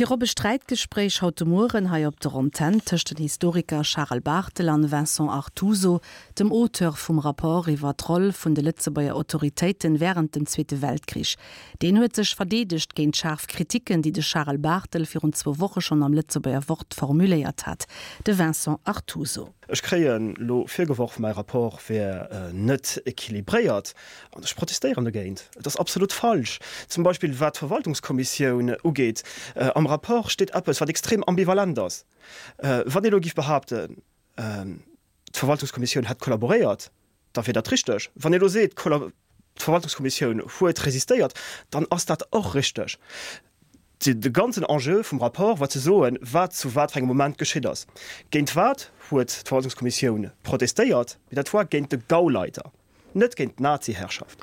Virop e Sträitgespréich haut de Mueren hei op der Antenn tëscht den Historiker Charel Barthel an Vincent Artuso, dem Auteur vum Rapport iwwer d'Roll vun de Lëtzebuerger Autoritéiten wärend dem Zweete Weltkrich. Deen huet sech verdeedegt géint schaarf Kriticken, déi de Charel Barthel virun zwou Woche schonn am Lëtzebuerger Wort formuléiert hat. De Vincent Artuso. Ech kréien elo virgeworf, mäi Rapport wär net équilibréiert, an ech protestéieren dogéint. Et ass absolut falsch. Zum Beispill wat d'Verwaltungskommissioun ugeet, am Rapport steet eppes, wat extrem ambivalent ass. Wann ee elo géif behaapten, d'Verwaltungskommissioun hätt kollaboréiert, da wier dat richteg. Wann ee elo seet, d'Verwaltungskommissioun huet resistéiert, dann ass dat och richteg. De ganzen Enjeu vum Rapport war ze soen, wat zu wat fir engem Moment geschitt ass. Géint wat huet d'Verwaltungskommissioun protestéiert? Mee dat war géint de Gauleiter, net géint d'Nazi-Herrschaft.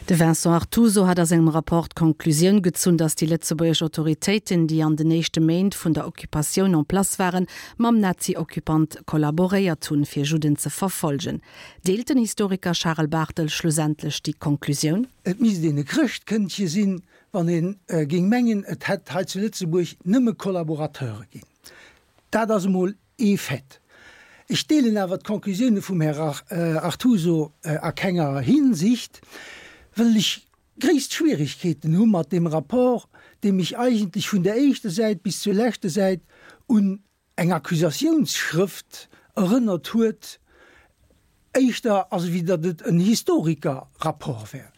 De Vincent Artuso hat a sengem Rapport d'Konklusioun gezunn, datt déi lëtzebuergesch Autoritéiten, déi an den éischte Méint vun der Occupatioun en place waren, mam Nazi-Occupant kollaboréiert hunn, fir Judden ze verfolgen. Deelt den Historiker Charel Barthel schlussendlech déi Konklusioun? Et misst een e Chrëschtkëndche sinn, wann ee géing mengen, et hätt hei zu Lëtzebuerg nëmme Collaborateure ginn. Dat ass emol ee Fait. Ech deelen awer d'Conclusioune vum Här Artuso a kenger Hinsicht, wëll ech gréisst Schwierigkeeten hu mat deem Rapport, dee mech eigentlech vun der éischter Säit bis zur leschter Säit un eng Accusatiounsschrëft erënnert huet, éischter as ewéi datt et en Historikerrapport wär.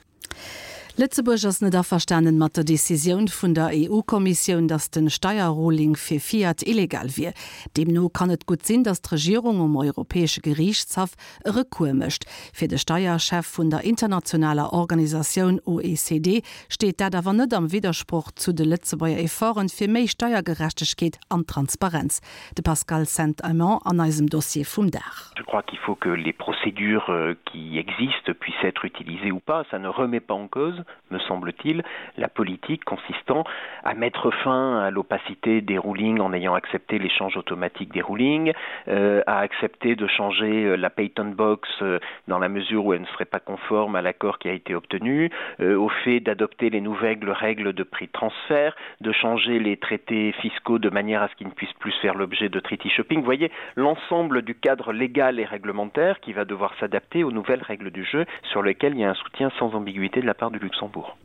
Lëtzebuerg ass net averstanen mat der Decisioun vun der EU-Kommissioun, datt den Steierruling fir Fiat illegal wier. Deemno kann et gutt sinn, datt d'Regierung um Europäesche Geriichtshaff e Recours mécht. Fir de Steierchef vun der internationaler Organisatioun OECD steet dat awer net am Widdersproch zu de Lëtzebuerger Efforten fir méi Steiergerechtegkeet an Transparenz. De Pascal Saint-Aimant an eisem Dossier vum Dag. Je crois qu'il faut que les procédures qui existent puissent être utilisées ou pas, ça ne remet pas en cause, me semble-t-il, la politique consistant à mettre fin à l'opacité des rulings en ayant accepté l'échange automatique des rulings, euh, à accepter de changer euh, la Payton box euh, dans la mesure où elle ne serait pas conforme à l'accord qui a été obtenu, euh, au fait d'adopter les nouvelles règles de prix de transfert, de changer les traités fiscaux de manière à ce qu'ils ne puissent plus faire l'objet de treaty shopping. Vous voyez l'ensemble du cadre légal et réglementaire qui va devoir s'adapter aux nouvelles règles du jeu sur lesquelles il y a un soutien sans ambiguïté de la part du Luxembourg.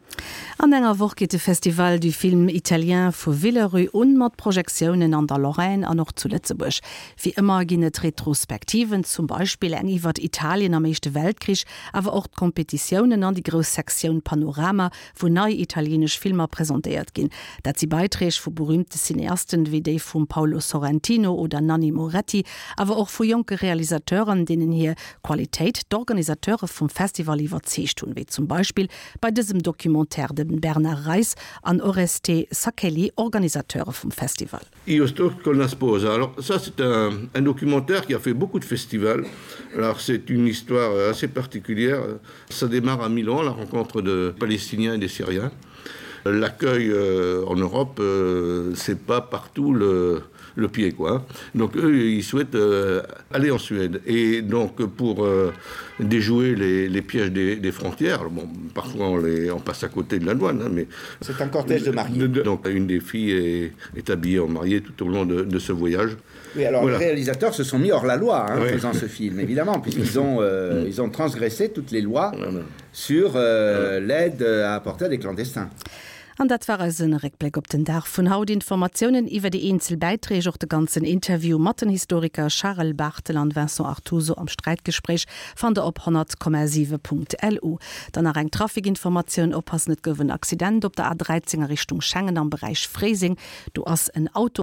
An enger Woch geet de Festival du Film Italien vu Villerupt un, mat Projektiounen an der Lorraine an och zu Lëtzebuerg. Wéi ëmmer ginn et Retrospektiven, zum Beispill eng iwwert Italien am Éischte Weltkrich, awer och d'Kompetitiounen an déi grouss Sektioun Panorama, wou nei italienesch Filmer presentéiert ginn. Dat si Beiträg vu berüümte Cineasten, wéi déi vum Paolo Sorrentino oder Nanni Moretti, awer och vu jonke Realisateuren, deenen hir Qualitéit d'Organisateure vum Festival iwwerzeegt hunn, wéi zum Beispill bei dësem Documentaire de Bernard Reis an Oreste Sacchelli, Organisateure vum Festival. Io sto con la sposa. Alors ça c'est un, un documentaire qui a fait beaucoup de festivals. Alors c'est une histoire assez particulière. Ça démarre à Milan, la rencontre de Palestiniens et des Syriens. L'accueil euh, en Europe, euh, c'est pas partout le, le pied quoi. Donc eux ils souhaitent euh, aller en Suède et donc pour euh, déjouer les, les pièges des, des frontières bon parfois on, les, on passe à côté de la douane hein, mais c'est un cortège de mariés. Donc une des filles est, est habillée en mariée tout au long de, de ce voyage. Oui, alors voilà. les réalisateurs se sont mis hors la loi hein, oui. en faisant ce film évidemment puisqu'ils ont, euh, mm. ils ont transgressé toutes les lois voilà. sur euh, l'aide à apporter à des clandestins. An dat war eisen Réckbléck op den Dag vun haut. Informatiounen iwwer déi eenzel Bäiträg, och de ganzen Interview mat den Historiker Charel Barthel an Vincent Artuso am Sträitgespréich fannt der op 100,7.lu. Dann nach eng Trafikinformatioun, Oppassen, et gouf en Accident op der A 13 a Richtung Schengen am Beräich Fréiseng. Do ass en Auto.